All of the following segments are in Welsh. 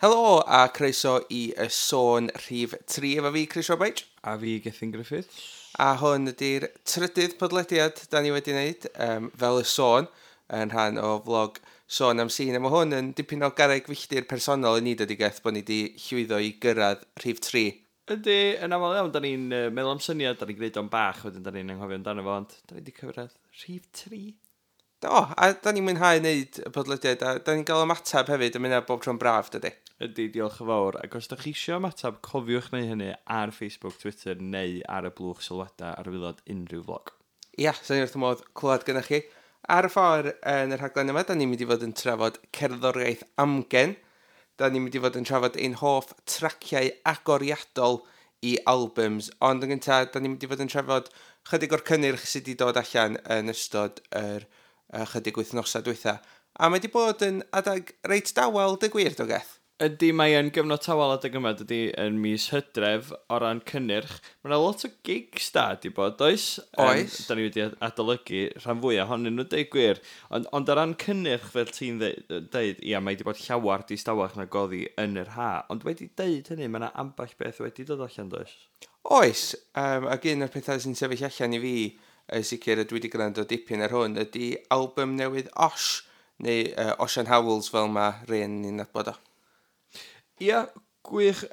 Helo a croeso i Y Sôn rhif 3 efo fi, Chris Roberts. A fi, Gethin Griffiths. A hwn ydy'r trydydd podlediad da ni wedi wneud, fel Y Sôn, yn rhan o vlog Sôn am Sîn. A mae hwn yn dipyn o garreg filltir personol i ni, dydy Geth, bod ni wedi llwyddo i gyrraedd rhif 3. Ydy, yn aml iawn, da ni'n meddwl am syniad, da ni'n gwneud o'n bach, wedyn da ni'n anghofio amdano fo, ond da ni wedi cyrraedd rhif 3. Do, a da ni'n mwynhau wneud y podlediad, a da ni'n gael ymateb hefyd, a mynd bob tro'n braf, dydy. Ydy, diolch yn fawr. Ac os da chi eisiau ymateb, cofiwch neu hynny ar Facebook, Twitter neu ar y blwch sylwadau ar waelod unrhyw vlog. Ia, sa'n ni wrth y modd clywed gyda chi. Ar y ffordd yn y rhaglen yma, da ni'n mynd i fod yn trafod cerddoriaeth amgen. Da ni'n mynd i fod yn trafod ein hoff traciau agoriadol i albums. Ond yn gyntaf, da ni'n mynd i fod yn trafod chydig o'r cynnyrch sydd wedi dod allan yn ystod yr chydig wythnosau dwytha. A mae wedi bod yn adag reit dawel, dy gwir, do Geth? Ydy, mae yn gyfnod tawel adeg yma, dydy, yn mis Hydref o ran cynnyrch. Mae yna lot o gigs da di bod, oes? Oes. Da ni wedi adolygu rhan fwyaf ohonyn nhw, deud gwir. Ond o ran cynnyrch, fel ti'n deud, ia, mae wedi bod llawar distawach na goddi yn yr ha. Ond wedi deud hynny, mae yna ambell beth wedi dod allan, does? Oes, ac un o'r pethau sy'n sefyll allan i fi, yn sicr ydw i wedi gwrando dipyn ar hwn, ydy album newydd Osh, neu Osian Howells fel mae rhain ni'n nabod o. Ia, gwych.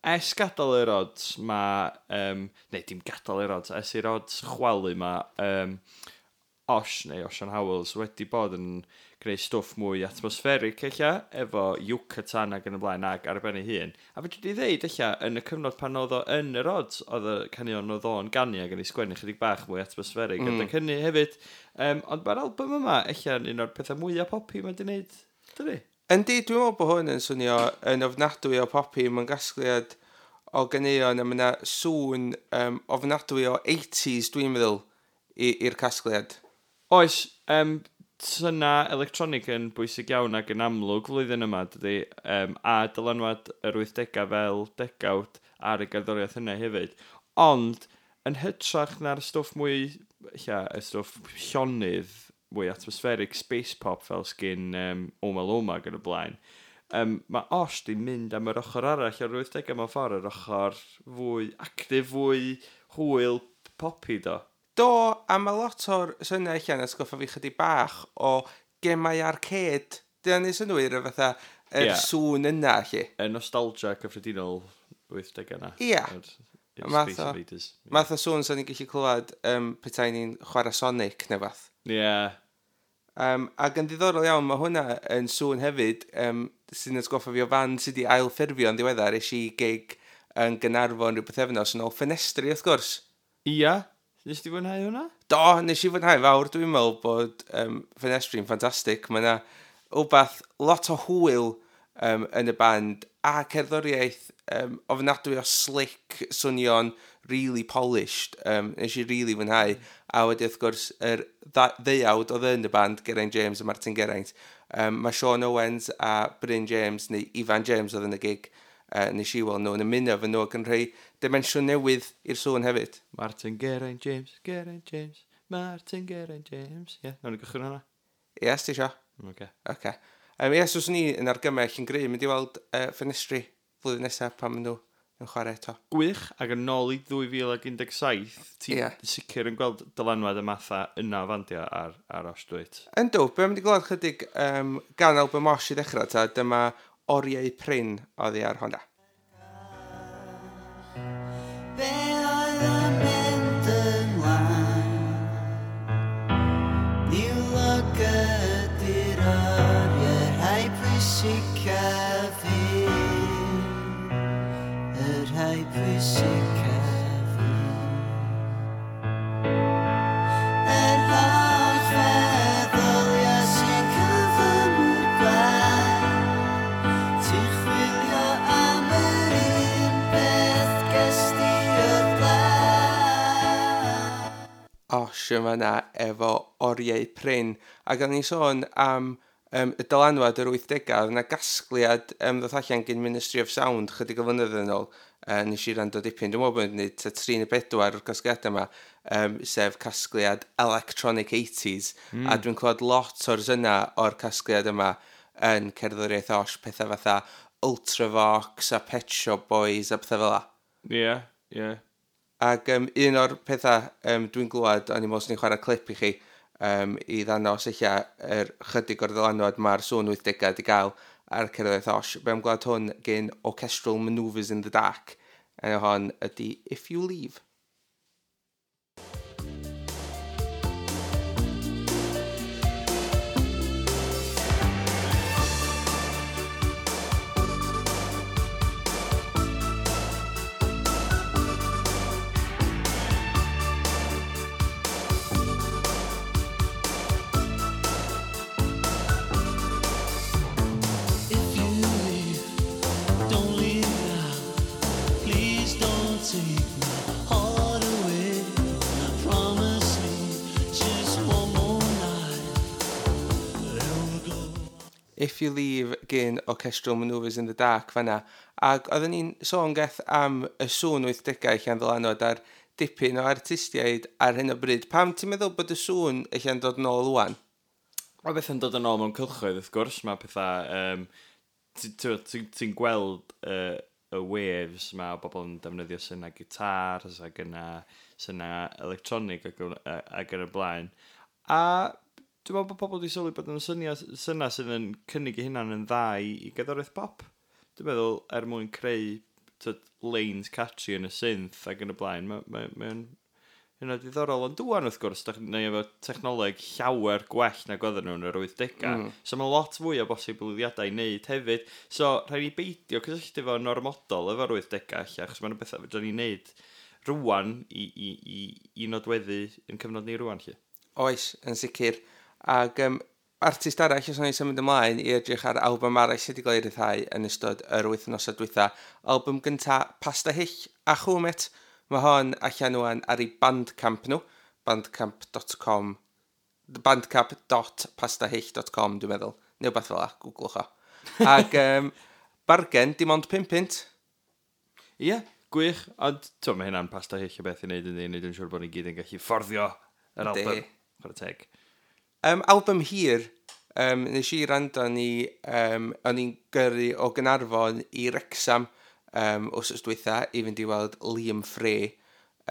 Es gadael yr Odds, mae... neu dim gadael yr Odds, es i'r Odds chwalu mae Osh, neu Osian Howells, wedi bod yn gwneud stwff mwy atmospheric ella, efo Yucatan ac yn y blaen ag ar ben ei hun. A fedri di ddeud ella, yn y cyfnod pan oedd o yn yr Odds, oedd y caneuon oedd o'n ganu ac yn ei sgwennu chydig bach mwy atmospheric. Adeg hynny hefyd. Ond mae'r album yma ella yn un o'r pethau mwyaf poppy mae di wneud, dydi? Yndi, dwi'n meddwl bod hwn yn swnio yn ofnadwy o poppy. Mae'n gasgliad o ganeuon a mae yna sŵn ofnadwy o 80s, dwi'n meddwl, i'r casgliad. Oes, syna electronig yn bwysig iawn ac yn amlwg flwyddyn yma, dydy, a dylanwad yr 80au fel degawd ar y gerddoriaeth yna hefyd. Ond, yn hytrach na'r stwff mwy, ella, y stwff llonydd, mwy atmospheric space pop fel sgyn Oma Loma ac yn y blaen, mae Osh di mynd am yr ochr arall o'r 80au mewn ffordd, yr ochr fwy actif, fwy hwyl poppy do. Do, a mae lot o'r syniad allan atgoffa fi chydig bach o gemau arcade. Dyna ni synwyr y fatha yr sŵn yna, lle. Y nostalgia cyffredinol 80au yna. Yr Math Space Invaders. O sŵn sa'n ni'n gallu clywed petai ni'n chwarae Sonic neu fath. Ac yn ddiddorol iawn, mae hwnna yn sŵn hefyd, sy'n atgoffa fi o fan sydd wedi ailffurfio yn ddiweddar. Es i gig yn Gaernarfon rhyw bythefnos yn ôl, Ffenestri, wrth gwrs. Ia. Nes ti fwynhau hwnna? Do, nes i fwynhau fawr. Dwi'n meddwl bod Ffenestri'n ffantastig. Mae yna wbath lot o hwyl yn y band a cerddoriaeth ofnadwy o slick, swnio'n really polished. Nes i really fwynhau. A wedi wrth gwrs yr ddeuawd oedd yn y band, Geraint James a Martin Geraint. Mae Sean Owens a Bryn James, neu Ifan James oedd yn y gig, nes i weld nhw yn ymuno efo nhw ac yn rhoi dimensiwn newydd i'r sŵn hefyd. Martin Geraint James, Geraint James, Martin Geraint James. Ie, yeah, nawn ni gychwyn hwnna. Yes, ti isio? Oce. Oce. Ie, so swn i yn argymell yn gryf mynd i weld Ffenestri flwyddyn nesaf pan maen nhw yn chwarae eto. Gwych, ac yn ôl i 2017, ti sicr yn gweld dylanwad y matha yna o fandio ar Osh, dwyt? Yndw, be am wedi gweld chydig gan album Osh i ddechrau, ta, dyma Oriau Prin oddi ar hwnna. Be oedd yn mynd ymlaen? Niwlog ydy'r oriau rhai pwysicaf fi. Y rhai pwysicaf fi. Yr holl feddyliau sy'n cyflymu'r gwaith. Ti'n chwilio am yr un beth ges di o'r blaen. Osh yma na efo Oriau Prin. Ac o'n i'n sôn am y dylanwad yr 80au, oedd yna gasgliad ddoth allan gan Ministry of Sound chydig o flynyddoedd yn ôl. Nes i rando dipyn, dwi'n meddwl bod yn gwneud tua 3 neu 4 o'r casgliadau yma, sef casgliad Electronic 80s. A dwi'n clywed lot o'r syna o'r casgliad yma yn cerddoriaeth Osh, pethau fatha Ultravox a Pet Shop Boys a pethau fel 'a. Ie, yeah, ie. Yeah. Ac un o'r pethau dwi'n glwad, o'n i'n meddwl swn i'n chwarae clip i chi i ddangos eich yr chydig o'r ddylanwad mae'r sŵn 80au wedi gael ar cerddoriaeth Osh. Be am glwad hwn gen Orchestral Manoeuvres in the Dark. Enw hon ydy If You Leave. If you leave, don't leave now. Please don't take my heart away. Promise me just one more night. Then we'll go. If You Leave gen Orchestral Manoeuvres in the Dark fanna. Ac oedden ni'n sôn geth am y sŵn 80au allan ddylanwad ar dipyn o artistiaid ar hyn o bryd. Pam ti'n meddwl bod y sŵn allan dod nôl ŵan? Mae bethau'n dod yn ôl mewn cylchoedd, wrth gwrs. Mae pethau... Ti'n gweld y waves ma o bobl yn defnyddio syna gitars ac yna syna electronig ac yn y blaen. A dwi'n meddwl bod pobl wedi sylwi bod yn syniad syna sydd yn cynnig eu hunan yn dda i gerddoriaeth pop. Dwi'n meddwl er mwyn creu tyd, lanes catchy yn y synth ac yn y blaen, mae'n hynna diddorol. Ond dwan wrth gwrs, da ni efo technoleg llawer gwell nag oedden nhw yn yr 80au. So mae lot fwy o bosibiliadau i wneud hefyd. So rhaid ni beidio cysylltu fo'n ormodol efo'r 80au ella, achos mae'n bethau fedrwn ni wneud rwan i nodweddu yn cyfnod ni rwan lle. Oes, yn sicr. Ac artist arall, os o'n i'n symud ymlaen i edrych ar album arall sydd wedi cael ei ryddhau yn ystod yr wythnosau dwytha. Album gynta Pasta Hyll a Chwmet. Mae hon allan ŵan ar ei Bandcamp nhw, bandcamp.com, bandcamp.pastahyll.com dwi'n meddwl. Neu wbath fel 'a, googlwch o. Ac bargen, dim ond 5 punt. Ie, yeah, gwych. Ond t'o, mae hynna'n Pasta Hyll o beth i wneud yn wneud yn siŵr bod ni gyd yn gallu fforddio yr Yndi. album. Chwarae teg. Album hir, nes i rando ni, o'n i'n gyrru o Gaernarfon i Wrexham wsos dwytha i fynd i weld Liam Frey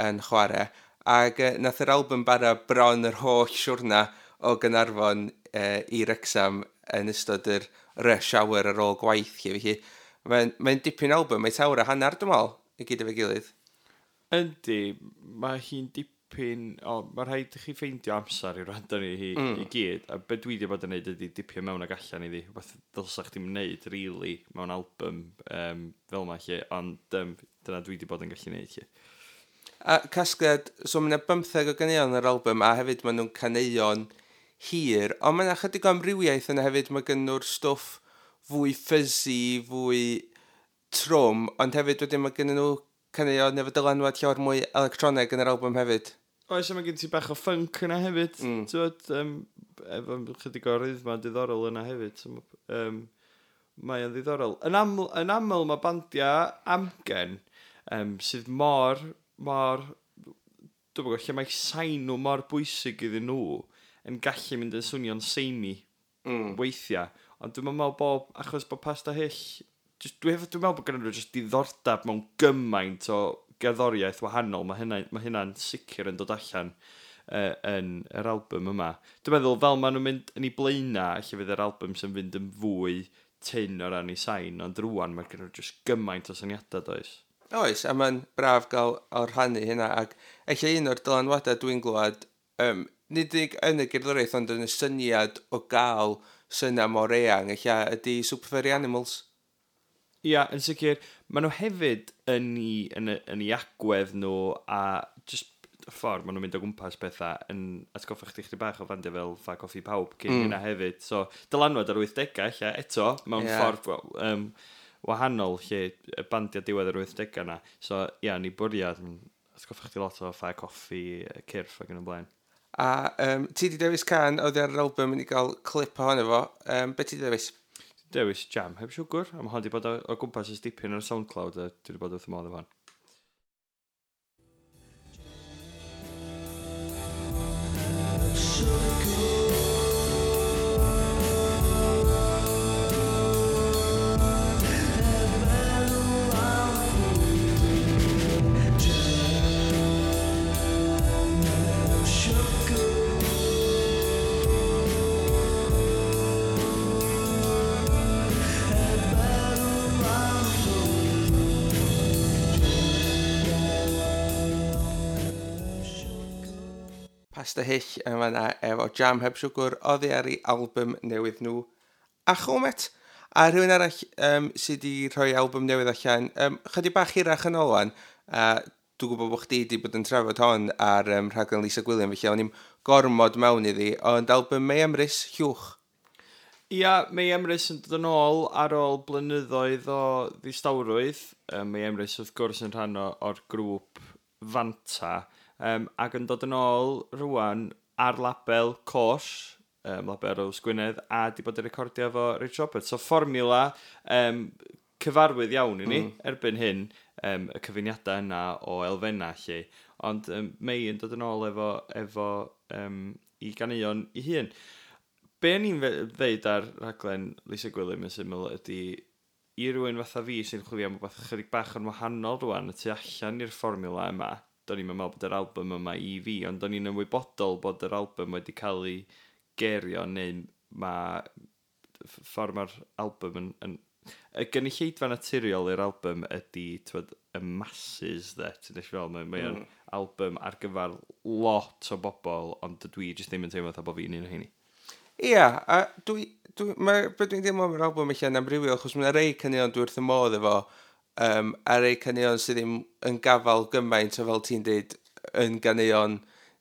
yn chwarae. Ac nath yr album bara bron yr holl siwrna o Gaernarfon i Wrexham yn ystod yr rush hour ar ôl gwaith. Lle. Felly, mae'n dipyn album, mae'n awr a hanner dwi'n meddwl, i gyd efo'i gilydd. Yndi, mae hi'n dipyn... O, mae rhaid i chi ffeindio amser i wrando ni i gyd. A be dwi wedi bod yn neud ydy dipio mewn ag allan iddi. Rhywbeth ddylsa chdi'm neud, really, mewn album fel ma lle. Ond dyna dwi wedi bod yn gallu neud lle. A casgliad, so mae yna 15 o ganeuon yr album, a hefyd maen nhw'n caneuon hir, ond mae yna chydig o amrywiaeth yna hefyd, mae gen nhw'r stwff fwy fuzzy, fwy trwm, ond hefyd wedyn mae gen nhw caneuon efo dylanwad llawer mwy electroneg yn yr album hefyd. Oes, a mae gen ti bach o funk yna hefyd. T'wod, efo chydig o rhythma diddorol yna hefyd. So, mae o'n ddiddorol. Yn aml mae bandiau amgen sydd mor, dwi'n gwybod, lle mae sain nhw mor bwysig iddyn nhw yn gallu mynd yn swnio'n samey weithiau. Ond dwi'n meddwl bod, achos bod Pasta Hyll, dwi'n meddwl bod gen nhw just diddordeb mewn gymaint o gerddoriaeth wahanol. Mae hynna'n sicr yn dod allan yn yr album yma. Dwi'n meddwl fel maen nhw'n mynd yn ei blaenau, lle fydd yr album sy'n fynd yn fwy tyn o ran ei sain, ond rwan mae gen nhw just gymaint o syniadau, does? Oes, a mae'n braf gael o rhannu hynna, ac ella un o'r dylanwadau dwi'n glwad, nid unig yn y gerddoriaeth, ond yn y syniad o gael syna mor eang, ella ydy Super Furry Animals. Ia, yn sicr, maen nhw hefyd yn ei agwedd nhw a just y ffordd maen nhw'n mynd o gwmpas pethau yn atgoffa chdi chdi bach o fandiau fel Ffa Coffi Pawb cyn hynna hefyd. So, dylanwad ar 80au ella eto, mewn ffordd wahanol lle y bandiau diwedd yr 80au na. So, ia, ni bwriad, atgoffa chdi lot o Ffa Coffi, Cyrff ac yn y blaen. A ti di dewis can oedd ar yr album i gael clip ohono fo. Be ti di dewis? Dewis Jam heb siwgr, a mae hon di bod o gwmpas ers dipyn ar SoundCloud, a dwi wedi bod wrth y modd efo hon. Pasta Hyll yn fanna efo Jam Heb Siwgr oddi ar ei album newydd nhw a Chomet. A rhywun arall sydd wedi rhoi album newydd allan, chydig bach hirach yn ôl wan, a dwi'n gwybod bod chdi wedi bod yn trafod hon ar rhaglen Lisa Gwilym, felly o'n i'm gormod mewn iddi, ond album Mei Emrys, Llwch. Ia, Mei Emrys yn dod yn ôl ar ôl blynyddoedd o ddistawrwydd. Mei Emrys wrth gwrs yn rhan o'r grŵp Fanta, ac yn dod yn ôl rwan ar label Côsh, label Rose Gwynedd, a di bod yn recordio efo Rich Roberts. So fformiwla cyfarwydd iawn i ni erbyn hyn, y cyfuniadau yna o elfennau lle. Ond Mei yn dod yn ôl efo i ganeuon i hun. Be ni'n ddeud ar rhaglen Lisa Gwilym yn syml ydy i rywun fatha fi sy'n chwilio am rhywbeth chydig bach yn wahanol rwan y tu allan i'r fformiwla yma. Do'n i'n meddwl bod yr album yma i fi, ond do'n i'n ymwybodol bod yr album wedi cael ei gerio neu mae ffordd mae'r album yn y gynulleidfa naturiol i'r album ydy, t'wod, y masses de, ti'n deall fel, mae o'n album ar gyfer lot o bobl, ond dwi jyst ddim yn teimlo fatha bod fi'n un o heini. Ia, a mae, be dwi'n deimlo am yr album eich yn amrywio, achos mae'n rei caneuon dwi wrth y modd efo, a rei caneuon sydd ddim yn gafal gymaint o fel ti'n deud yn ganeuon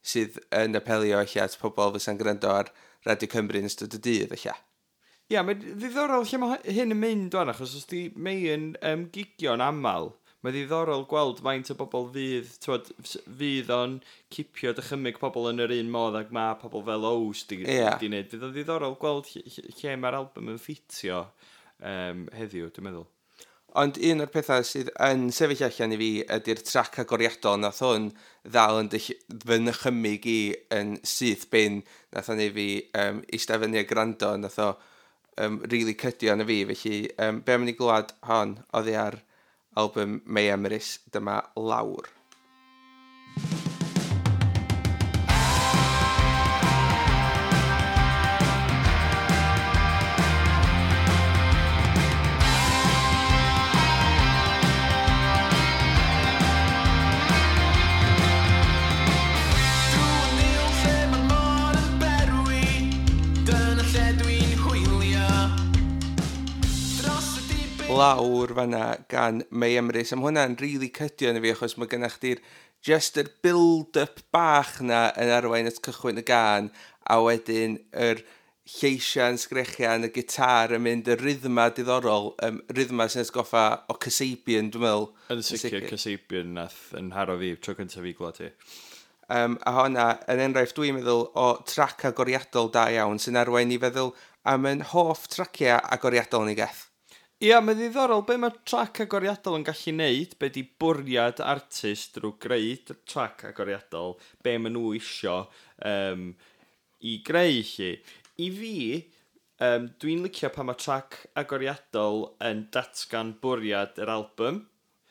sydd yn apelio eich at pobl fysa'n gwrando ar Radio Cymru yn ystod y dydd eich. Ia, mae'n ddiddorol lle mae hyn yn mynd wan, achos os di Mei yn gigio'n aml, mae'n ddiddorol gweld faint o bobl fydd, t'wod, fydd o'n cipio dychymyg pobl yn yr un modd ag mae pobl fel Ows di wneud. Fydd o'n ddiddorol gweld lle mae'r album yn ffitio heddiw, dwi'n meddwl. Ond un o'r pethau sydd yn sefyll allan i fi ydy'r trac agoriadol nath hwn ddal yn fy nychymyg i yn syth bin nath o'n ei fi eistedd fyny a gwrando, nath o really cydio yn y fi, felly be am i ni glwad hon oddi ar album Mei Emrys, dyma Lawr. Drwy niwl lle mae'r môr yn berwi, dyna lle dwi'n hwylio. Dros y dibyn Lawr fanna gan Mei Emrys. A ma' hwnna'n really cydio yn y fi, achos mae gennych chdi'r just yr build-up bach na yn arwain at cychwyn y gan, a wedyn yr lleisiau'n sgrechian, y gitar yn mynd, y rhythma diddorol, rhythma sy'n atgoffa o Kasabian, dwi'n meddwl. Yn sicr, Kasabian nath yn haro fi, tro cyntaf fi glwad hi. A honna, yn enghraifft dwi'n meddwl o trac agoriadol da iawn sy'n arwain i feddwl am yn hoff traciau agoriadol ni geth. Ia, mae'n ddiddorol be mae trac agoriadol yn gallu neud, be di bwriad artist drwy greu trac agoriadol, be maen nhw isio i greu chi. I fi, dwi'n licio pan mae trac agoriadol yn datgan bwriad yr album.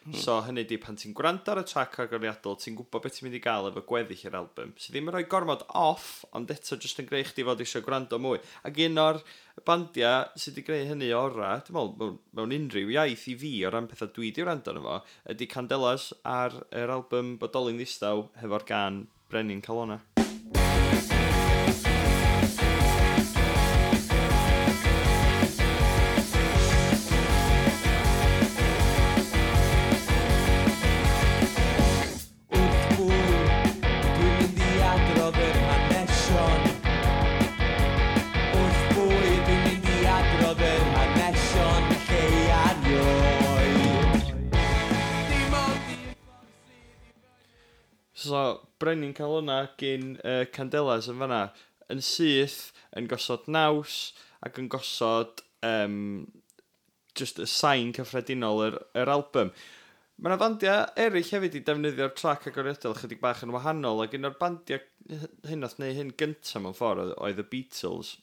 So hynny di pan ti'n gwrando ar y trac agoriadol, ti'n gwybod beth ti'n mynd i gael efo gweddill yr album. Sydd ddim yn rhoi gormod off, ond eto jyst yn greu chdi fod eisiau gwrando mwy. Ac un o'r bandiau sydd wedi greu hynny ora, dwi'n meddwl, mewn unrhyw iaith i fi o ran pethau dwi wedi wrando arno fo, ydy Candelas ar yr album Bodoli'n Ddistaw hefo'r gan Brenin Calona. Wrth bwyd, dwi'n mynd i adrodd yr hanesion. Wrth bwyd, dwi'n mynd i adrodd yr hanesion lleia erioed. Dim ond un So, Brenin Calona gyn Candelas yn fanna, yn syth, yn gosod naws, ac yn gosod just y sain cyffredinol yr album. Mae yna bandiau eraill hefyd i defnyddio'r trac agoriadol chydig bach yn wahanol, ac un o'r bandiau hyn nath wneud hyn gyntaf mewn ffordd oedd y Beatles.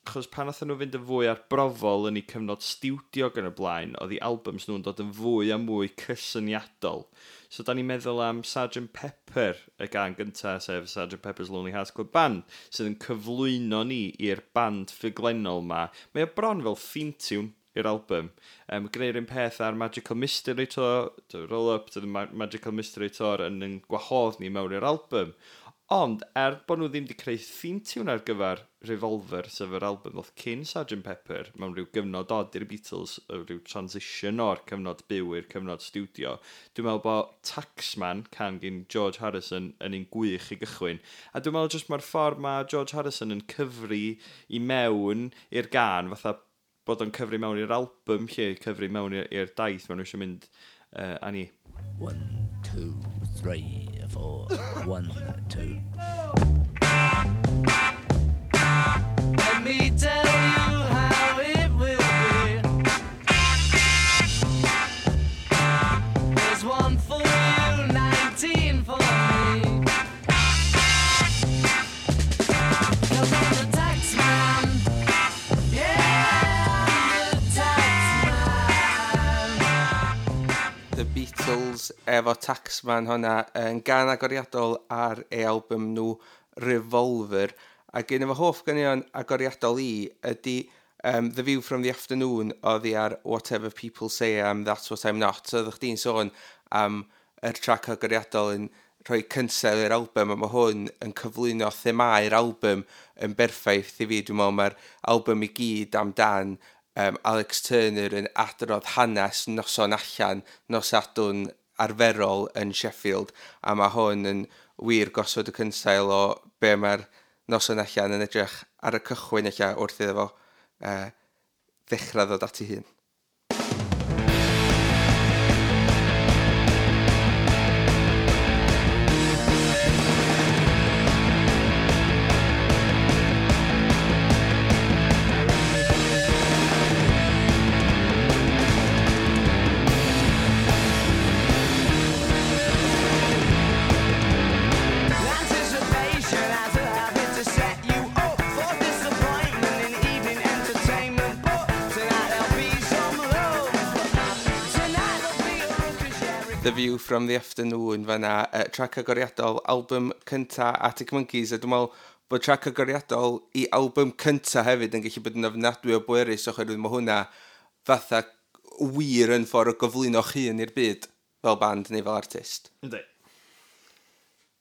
Achos pan nathon nhw fynd yn fwy arbrofol yn eu cyfnod stiwdio gan y blaen, oedd eu albums nhw'n dod yn fwy a mwy cysyniadol. So da ni'n meddwl am Sgt Pepper, y gan gyntaf, sef Sgt Pepper's Lonely Hearts Club Band, sydd yn cyflwyno ni i'r band ffuglenol ma. Mae o bron fel theme tune i'r album. Gwneud un peth ar Magical Mystery Tour, to Roll Up to the Magical Mystery Tour yn gwahodd ni mewn i'r album. Ond, er bod nhw ddim wedi creu theme tune ar gyfer Revolver, sef yr album ddoth cyn Sgt Pepper, mewn rhyw gyfnod od i'r Beatles, rhyw transition o'r cyfnod byw i'r cyfnod studio, dwi'n meddwl bod Taxman, can gyn George Harrison, yn un gwych i gychwyn. A dwi'n meddwl jyst mae'r ffordd mae George Harrison yn cyfri i mewn i'r gan, fatha bod o'n cyfri mewn i'r album lle, cyfri mewn i'r daith maen nhw eisiau mynd â ni. 1, 2, 3, 4, 1, 2. Let me tell you how it will be. There's one for you, 19 for me. 'Cause I'm the tax man. Yeah, I'm the tax man. The Beatles efo Taxman hwnna yn gan agoriadol ar ei album nhw Revolver. Ac un efo hoff ganeuon agoriadol i ydy The View from the Afternoon oddi ar Whatever People Say I'm, That's What I'm Not. So oeddech chdi'n sôn am yr trac agoriadol yn rhoi cynsel i'r album, a mae hwn yn cyflwyno themau'r album yn berffaith i fi. Dwi'n meddwl mae'r album i gyd amdan Alex Turner yn adrodd hanes noson allan, nos Sadwrn arferol yn Sheffield, a mae hwn yn wir gosod y cynsail o be mae'r noson allan yn edrych ar y cychwyn ella wrth iddo fo ddechrau ddod at ei hun. Anticipation has a habit to set you up for disappointment in evening entertainment. But tonight there'll be some love. Tonight there'll be a ruckus, yeah. The View from the Afternoon fanna, trac agoriadol, album cynta Arctic Monkeys, a dwi'n meddwl bod trac agoriadol i album cynta hefyd yn gallu bod yn ofnadwy o bwerus oherwydd mae hwnna fatha wir yn ffordd o gyflwyno'ch hun i'r byd fel band neu fel artist. Yndi.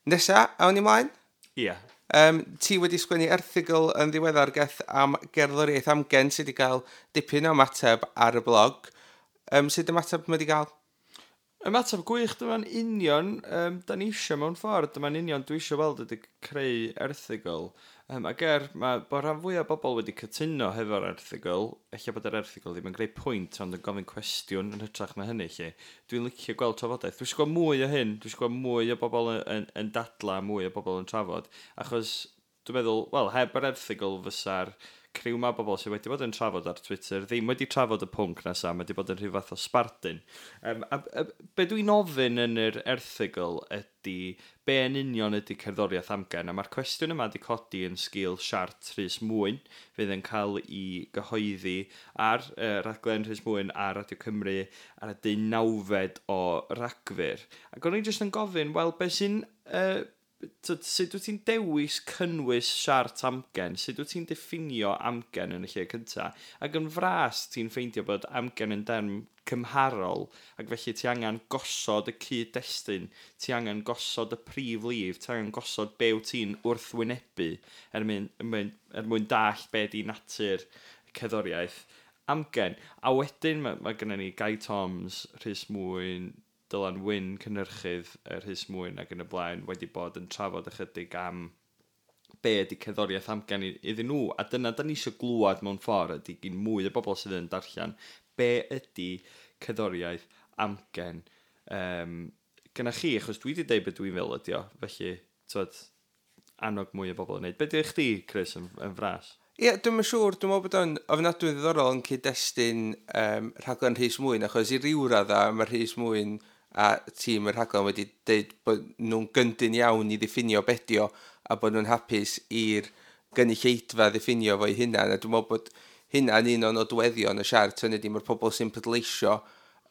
Nesa, awn ni mlaen? Ie. Ti wedi sgwennu erthygl yn ddiweddar Geth am gerddoriaeth amgen sydd wedi cael dipyn o ymateb ar y blog. Sut ymateb mae wedi cael? Ymateb gwych, dyma'n union, da ni eisiau mewn ffordd, dyma'n union dwi eisiau weld ydy creu erthygl. Ac mae bod rhan fwyaf o bobl wedi cytuno hefo'r erthygl, ella bod yr erthygl ddim yn greu pwynt, ond yn gofyn cwestiwn yn hytrach na hynny, lle. Dwi'n licio gweld trafodaeth. Dwi eisiau gweld mwy o hyn, dwi eisiau gweld mwy o bobl yn dadla, mwy o bobl yn trafod, achos dwi'n meddwl, wel, heb yr erthygl fysa'r criw ma bobl sydd wedi bod yn trafod ar Twitter ddim wedi trafod y pwnc nesa, mae wedi bod yn rhyw fath o sbardun. A be dwi'n ofyn yn yr erthygl ydy be yn union ydy cerddoriaeth amgen, a mae'r cwestiwn yma wedi codi yn sgil siart Rhys Mwyn, fydd yn cael ei gyhoeddi ar raglen Rhys Mwyn ar Radio Cymru ar y 19fed o Ragfyr. Ac o'n i jyst yn gofyn, wel, be sy'n... sut wyt ti'n dewis cynnwys siart amgen? Sut wyt ti'n diffinio amgen yn y lle cynta? Ac yn fras ti'n ffeindio bod amgen yn derm cymharol, ac felly ti angen gosod y cyd-destun, ti angen gosod y prif lif, ti angen gosod be wyt ti'n wrthwynebu er mwyn dallt be di natur cerddoriaeth amgen. A wedyn mae gennym ni Guy Toms, Rhys Mwyn, Dylan Wyn, cynhyrchydd Rhys Mwyn ac yn y blaen, wedi bod yn trafod ychydig am be ydy cerddoriaeth amgen iddyn nhw. A dyna da ni eisiau glwad mewn ffordd ydy gyn mwy o bobl sydd yn darllen be ydy cerddoriaeth amgen gyna chi, achos dwi wedi deud beth dwi'n fel ydi o, felly, t'wod, annog mwy o bobl yn neud. Be di chdi, Chris, yn fras? Ie, dwi'm yn siŵr, dwi'n meddwl bod o'n ofnadwy ddiddorol yn cyd-destun rhaglen Rhys Mwyn, achos i ryw radda mae Rhys Mwyn a tîm y rhaglen wedi deud bod nhw'n gyndyn iawn i ddiffinio be 'di o a bod nhw'n hapus i'r gynulleidfa ddiffinio fo'i hunan, a dwi'n meddwl bod hynna'n un o'n nodweddion y siart, hynny ydi mae'r pobl sy'n pleidleisio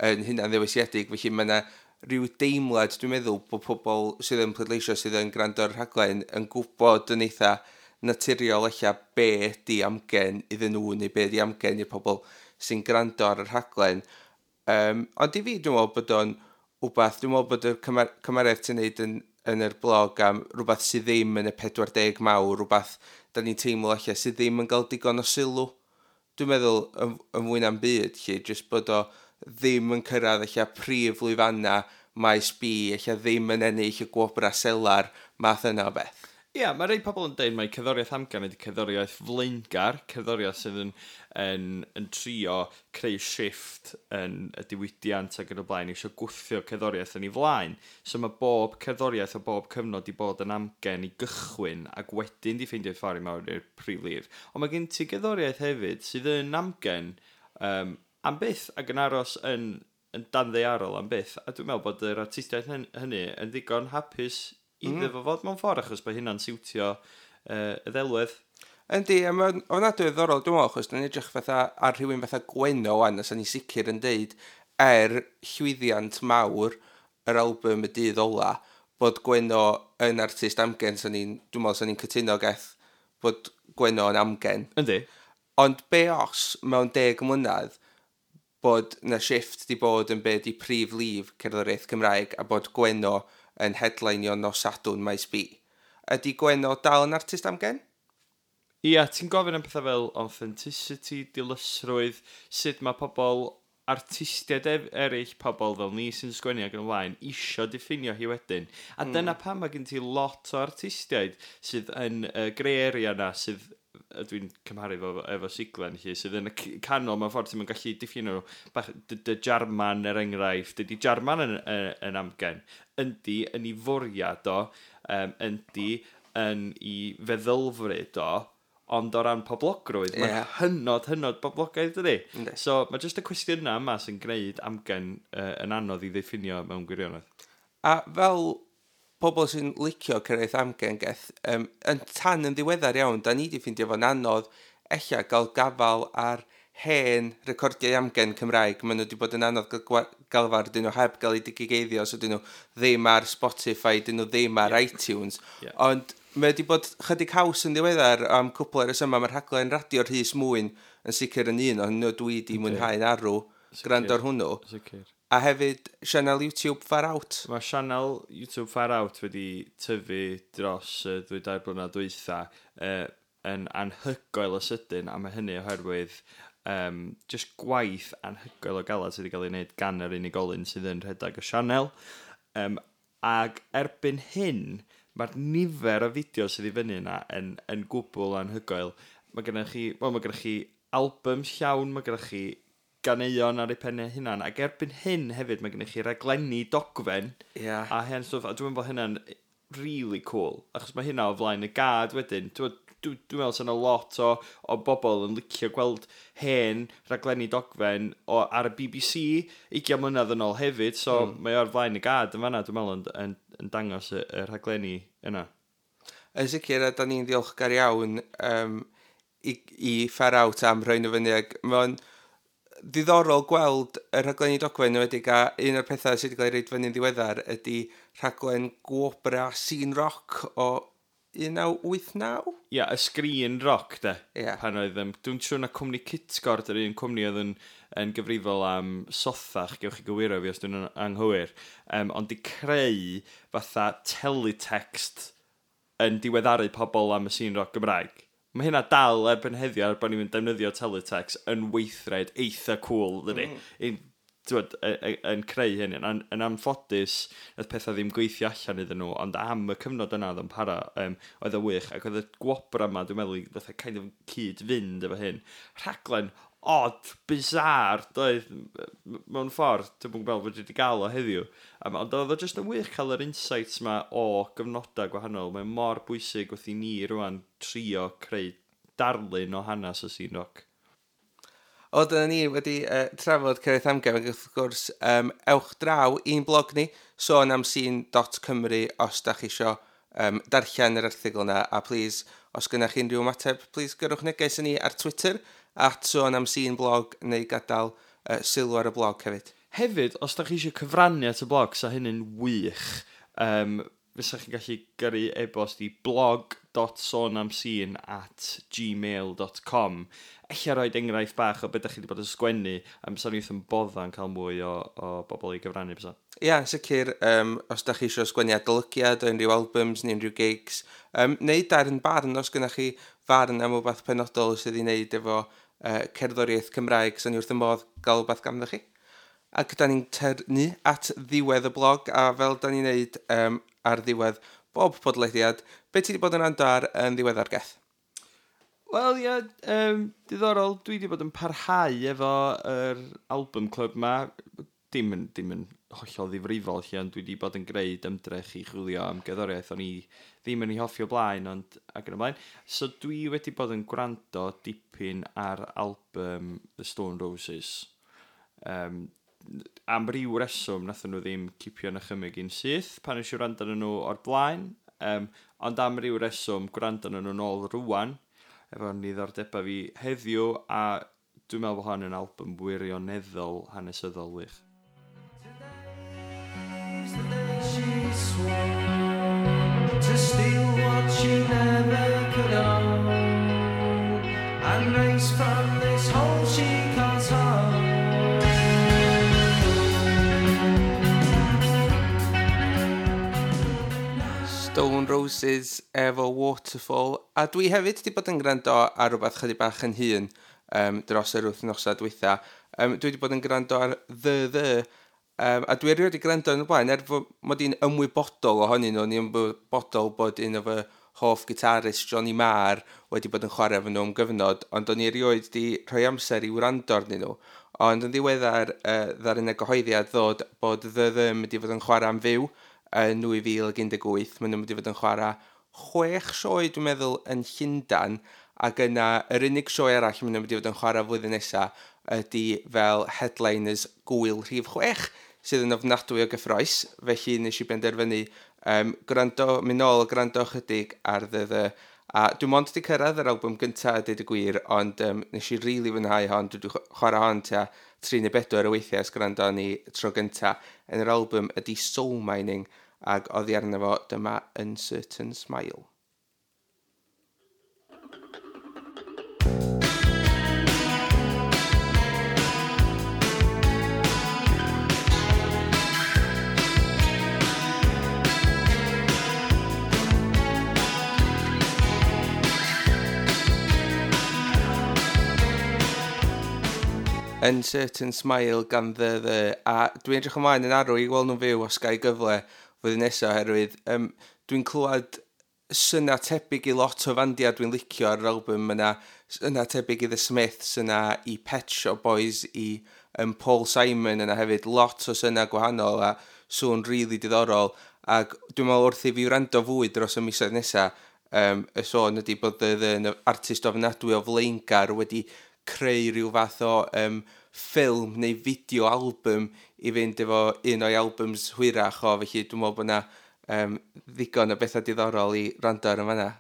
yn hynna'n ddewisiedig, felly mae yna rhyw deimlad, dwi'n meddwl, bod pobl sydd yn pleidleisio, sydd yn gwrando ar rhaglen, yn gwybod yn eitha naturiol ella be ydi amgen iddyn nhw, neu be ydi amgen i'r pobl sy'n gwrando ar y rhaglen. Ond i fi, dwi'n meddwl bod o'n wbath, dwi'n meddwl bod y cymeriad ti'n neud yn yn yr blog am rhywbeth sydd ddim yn y 40 mawr, rhywbeth da ni'n teimlo allan sydd ddim yn cael digon o sylw. Dwi'n meddwl yn fwy na'n byd, lle, jyst bod o ddim yn cyrraedd allan prif lwyfanna maes B, allan ddim yn ennill y gwobra selar, math yna o beth. Ia, yeah, mae rhai pobl yn deud mai cerddoriaeth amgen ydy cerddoriaeth flaengar, cerddoriaeth sydd yn trio creu shift yn y diwydiant ac yn y blaen, eisiau gwthio cerddoriaeth yn ei flaen. So mae bob cerddoriaeth o bob cyfnod i bod yn amgen i gychwyn ac wedyn di ffeindio ffordd i mewn i'r prif lif. Ond mae gen ti gerddoriaeth hefyd sydd yn amgen am byth ac yn aros yn danddaearol am byth. A dwi'n meddwl bod yr artistiaid hynny yn ddigon hapus iddo fo fod mewn ffordd, achos bod hynna'n siwtio y ddelwedd. Yndi, a mae'n ofnadwy o ddiddorol, dwi'n meddwl, achos dwi'n edrych fatha ar rhywun fatha Gwenno wan, a sa'n ni sicr yn deud, er llwyddiant mawr yr album Y Dydd Ola, bod Gwenno yn artist amgen, dwi'n meddwl sa'n ni'n cytuno geth bod Gwenno yn amgen. Yndi. Ond be os, mewn 10 mlynedd, bod na shift di bod yn be di prif lif cerddoriaeth Cymraeg a bod Gwenno yn headlineio nos Sadwrn Maes B. Ydy Gwenno dal yn artist amgen? Ia, ti'n gofyn am pethau fel authenticity, dilysrwydd, sut mae pobl, artistiaid eraill, pobl fel ni sy'n sgwennu ac yn y blaen, isio diffinio hi wedyn. A dyna pam mae gen ti lot o artistiaid sydd yn y grey area na, sydd dwi'n cymharu efo siglen lle, sydd yn y canol mewn ffordd ti'n gallu diffinio nhw. Bach, dy Jarman er enghraifft, dydy Jarman yn amgen. Yndi yn ei fwriad o, yndi yn ei feddylfryd o, ond o ran poblogrwydd, mae'n hynod, hynod boblogaidd, dydy? Yndi. So, mae jyst y cwestiynau yma sy'n gwneud amgen yn anodd i ddiffinio mewn gwirionedd. A fel pobl sy'n licio cyrraedd amgen geth, yn tan yn ddiweddar iawn, da ni di ffeindio fo'n anodd ella gael gafal ar hen recordiau amgen Cymraeg. Maen nhw wedi bod yn anodd gael galfar, dyn nhw heb gael eu digigeiddio, so dyn nhw ddim ar Spotify, dyn nhw ddim ar iTunes. Ond mae wedi bod chydig haws yn ddiweddar am cwpl o resymau. Mae'r rhaglen radio Rhys Mwyn yn sicr yn un o'n nhw dwi di mwynhau'n arw gwrando ar hwnnw. Sicr. A hefyd sianel YouTube Far Out. Mae sianel YouTube Far Out wedi tyfu dros y 2-3 blynedd dwytha yn anhygoel o sydyn, a mae hynny oherwydd just gwaith anhygoel o galad sydd wedi cael ei wneud gan yr unigolyn sydd yn rhedeg y sianel. Ag erbyn hyn, mae'r nifer o fideos sydd i fyny yna yn gwbl anhygoel. Mae gennych chi, wel, mae gennych chi albums llawn, mae gennych chi ganeuon ar eu pennau hunan, ac erbyn hyn hefyd mae gennych chi raglenni dogfen a hen stwff, a dwi'n meddwl bod hynna'n really cool, achos mae hynna o flaen y gad wedyn. Dwi'n meddwl sy'n lot o bobl yn licio gweld hen raglenni dogfen ar y BBC 20 mlynedd yn ôl hefyd, so mae o'r flaen y gad yn fanna, dwi'n meddwl, yn dangos y rhaglenni yna. Yn sicr, a da ni'n ddiolchgar iawn i Far Out am rhoi nhw fyny, ac mae'n ddiddorol gweld y rhaglenni dogfen yn enwedig, a un o'r pethau sydd wedi cael ei roid fyny'n ddiweddar ydy rhaglen gwobra Scene Rock o 1989? Ia, y Sgrin Rock, de. Ie. Pan oedd, dwi'n siŵr na cwmni Cytgord, yr un cwmni oedd yn gyfrifol am Sothach, gewch chi gywiro fi os dwi'n anghywir, ond di creu fatha teletext yn diweddaru pobl am y scene rock Gymraeg. Mae hynna dal erbyn heddiw, er bod ni'n defnyddio teletext yn weithred eitha cool, dydy. T'wod, yn creu hyn. Yn anffodus, nath pethau ddim gweithio allan iddyn nhw, ond am y cyfnod yna oedd yn para, oedd o wych, ac oedd y gwobra yma, dwi'n meddwl, fatha kind of cyd-fynd efo hyn. Rhaglen odd, bizarre, doedd, mewn ffordd, dwi'n gwybod bod wedi gael o heddiw. Ond oedd o jyst yn wych cael yr insights ma o gyfnodau gwahanol. Mae'n mor bwysig wrth i ni rwan trio creu darlun o hanes y scene rock. O, dyna ni wedi trafod Cerddoriaeth Amgen, ac wrth gwrs, ewch draw i'n blog ni, sôn am scene.cymru os da chi isio darllen yr erthygl yna, a please, os gynnach chi unrhyw ymateb, please gyrrwch neges i ni ar Twitter, @sôn am scene blog, neu gadael sylw ar y blog hefyd. Hefyd, os da chi eisiau cyfrannu at y blog, sa hynny'n wych. Fysa chi'n gallu gyrru e-bost i blog blog.sonamscene@gmail.com. Ella roid enghraifft bach o beth ydych chi wedi bod yn sgwennu, am sa'n wrth yn bodda'n cael mwy o bobl i gyfrannu bysa. Ia, yn sicr, os da chi eisiau sgwennu adolygiad o unrhyw albums neu unrhyw gigs, neu darn barn os gynnach chi farn am wbath penodol sydd i wneud efo cerddoriaeth Cymraeg, sa'n ni wrth y modd gael wbath ganddo chi. Ac da ni'n tyrnu at ddiwedd y blog, a fel da ni'n neud ar ddiwedd bob podlediad, be ti wedi bod yn rando ar yn ddiweddar, Geth? Wel, ie, diddorol, dwi wedi bod yn parhau efo yr album club ma. Dim yn hollol ddifrifol lle, ond dwi wedi bod yn gwneud ymdrech i chwilio am gerddoriaeth o'n i ddim yn ei hoffi o blaen, ond ac yn y blaen. So dwi wedi bod yn gwrando dipyn ar album The Stone Roses. Am ryw reswm nathon nhw ddim cipio yn nychymyg i'n syth pan nes i wrando arnyn nhw o'r blaen, ond am ryw reswm gwrando arnyn nhw nôl rŵan efo niddordebau fi heddiw, a dwi'n meddwl bod hon yn album wirioneddol hanesyddol wych. Today's the day she swore to steal what she never could own and race from this hole she calls home. Stone Roses efo Waterfall, a dwi hefyd wedi bod yn gwrando ar rhywbeth chydig bach yn hŷn dros yr wythnosau dwytha. Dwi wedi bod yn gwrando ar The, a dwi erioed wedi gwrando yn y blaen, er fod mod i'n ymwybodol ohonyn nhw, o'n i'n ymwybodol bod un o fy hoff gitarist Johnny Marr wedi bod yn chwarae efo nhw am gyfnod, ond o'n i erioed wedi rhoi amser i wrando arnyn nhw. Ond yn ddiweddar, ddaru yna gyhoeddiad ddod bod The The yn mynd i fod yn chwarae am fyw yn 2018. Maen nhw'n mynd i fod yn chwarae 6 sioe, dwi'n meddwl, yn Llundain, ac yna yr unig sioe arall maen nhw'n mynd i fod yn chwarae flwyddyn nesaf ydy fel headliners gwyl rhif 6, sydd yn ofnadwy o gyffroes. Felly nes i benderfynu gwrando, mynd nôl a gwrando chydig ar The The. A dwi'n mond wedi cyrraedd yr album gyntaf a deud y gwir, ond nes i rili fwynhau hon. Dwi wedi chwarae hon tua 3 neu 4 o weithiau ers gwrando ni tro gyntaf. Yn yr album ydy Soul Mining, ac oddi arno fo dyma Uncertain Smile. Uncertain Smile gan The The, a dwi'n edrych ymlaen yn arw i weld nhw'n fyw os ga i gyfle flwyddyn nesaf, oherwydd dwi'n clywed syna tebyg i lot o fandiau dwi'n licio ar yr album. Mae yna syna tebyg i The Smiths, yna i Pet Shop Boys, i Paul Simon yna hefyd, lot o syna gwahanol a sŵn rili diddorol, ac dwi'n meddwl wrth i fi wrando fwy dros y misoedd nesaf, y sôn ydy bod The The yn artist ofnadwy o flaengar wedi creu rhyw fath o ffilm neu fideo album i fynd efo un o'i albums hwyrach o, felly dwi'n meddwl bod yna ddigon o bethau diddorol i rando ar yn fanna.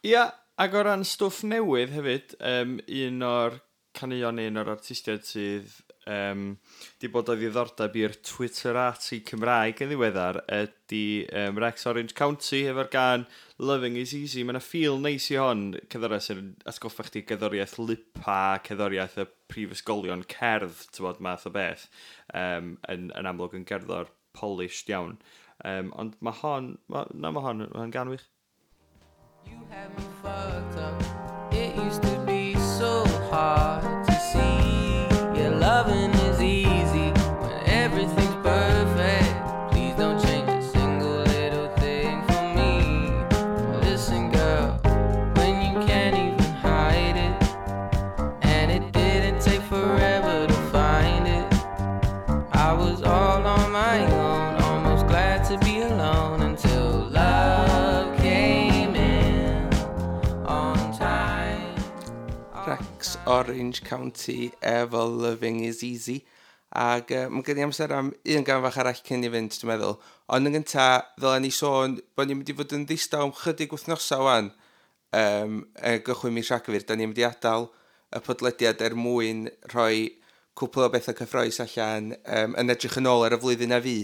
Ia, ac o ran stwff newydd hefyd, un o'r caneuon, un o'r artistiaid sydd di bod o ddiddordeb i'r Twitterati Cymraeg yn ddiweddar ydy Rex Orange County efo'r gan Loving is Easy. Mae yna feel neis i hon, cerddoriaeth sy'n atgoffa chdi gerddoriaeth Lipa, cerddoriaeth y prifysgolion cerdd, ti'n math o beth, yn amlwg yn gerddor polished iawn. Ond mae hon, mae hon gan wych. You had me fucked up. It used to be so hard to see. Yeah, loving is easy when everything's perfect. Please don't change a single little thing for me. Listen, girl, when you can't even hide it, and it didn't take forever to find it. I was all on my own, almost glad to be alone until love came in on time. Rex Orange County efo Loving is Easy. Ac mae gen i amser am un gan fach arall cyn i fynd, dwi'n meddwl. Ond yn gynta, ddylen ni sôn bod ni'n mynd i fod yn ddistaw am chydig wythnosau wan. Gychwyn mis Rhagfyr, da ni'n mynd i adael y podlediad er mwyn rhoi cwpl o bethau cyffrous allan yn edrych yn ôl ar y flwyddyn a fi.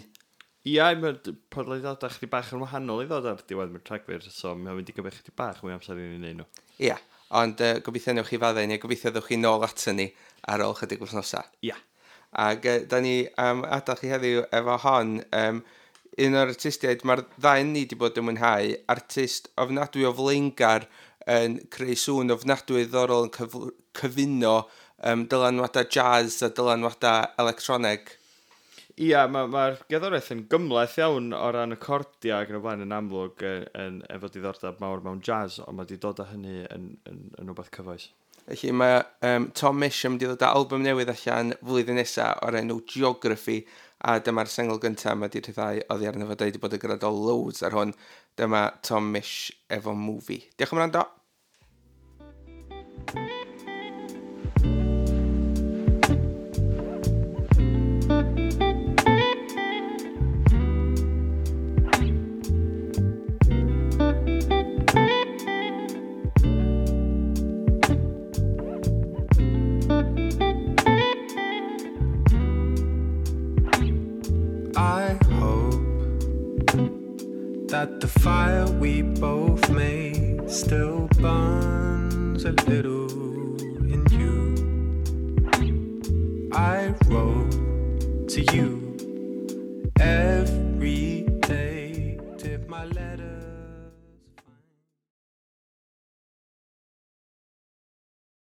Ia, mae'r podlediadau chdi bach yn wahanol i ddod ar diwedd mi'r Rhagfyr, so mae'n mynd i gymryd chdi bach mwy amser i ni wneud nhw. Ia, ond gobeithio newch chi faddau ni, a gobeithio ddewch chi nôl ato ni ar ôl chydig wythnosau. Ia. Ac da ni am adael chi heddiw efo hon, un o'r artistiaid mae'r ddau ni wedi bod yn mwynhau, artist ofnadwy o flaengar yn creu sŵn ofnadwy ddiddorol yn cyfuno dylanwadau jazz a dylanwadau electroneg. Ia, mae'r gerddoriaeth yn gymhleth iawn o ran y cordiau ac yn y blaen yn amlwg yn efo diddordeb mawr mewn jazz, ond mae wedi dod â hynny yn rhywbeth cyfoes. Felly mae Tom Misch yn mynd i ddod â album newydd allan flwyddyn nesaf o'r enw Geography, a dyma'r sengl gyntaf mae wedi rhyddhau oddi arno fo. Da ni wedi bod yn gwrando loads ar hwn. Dyma Tom Misch efo Movie. Diolch am wrando. I hope that the fire we both made still burns a little in you. I wrote to you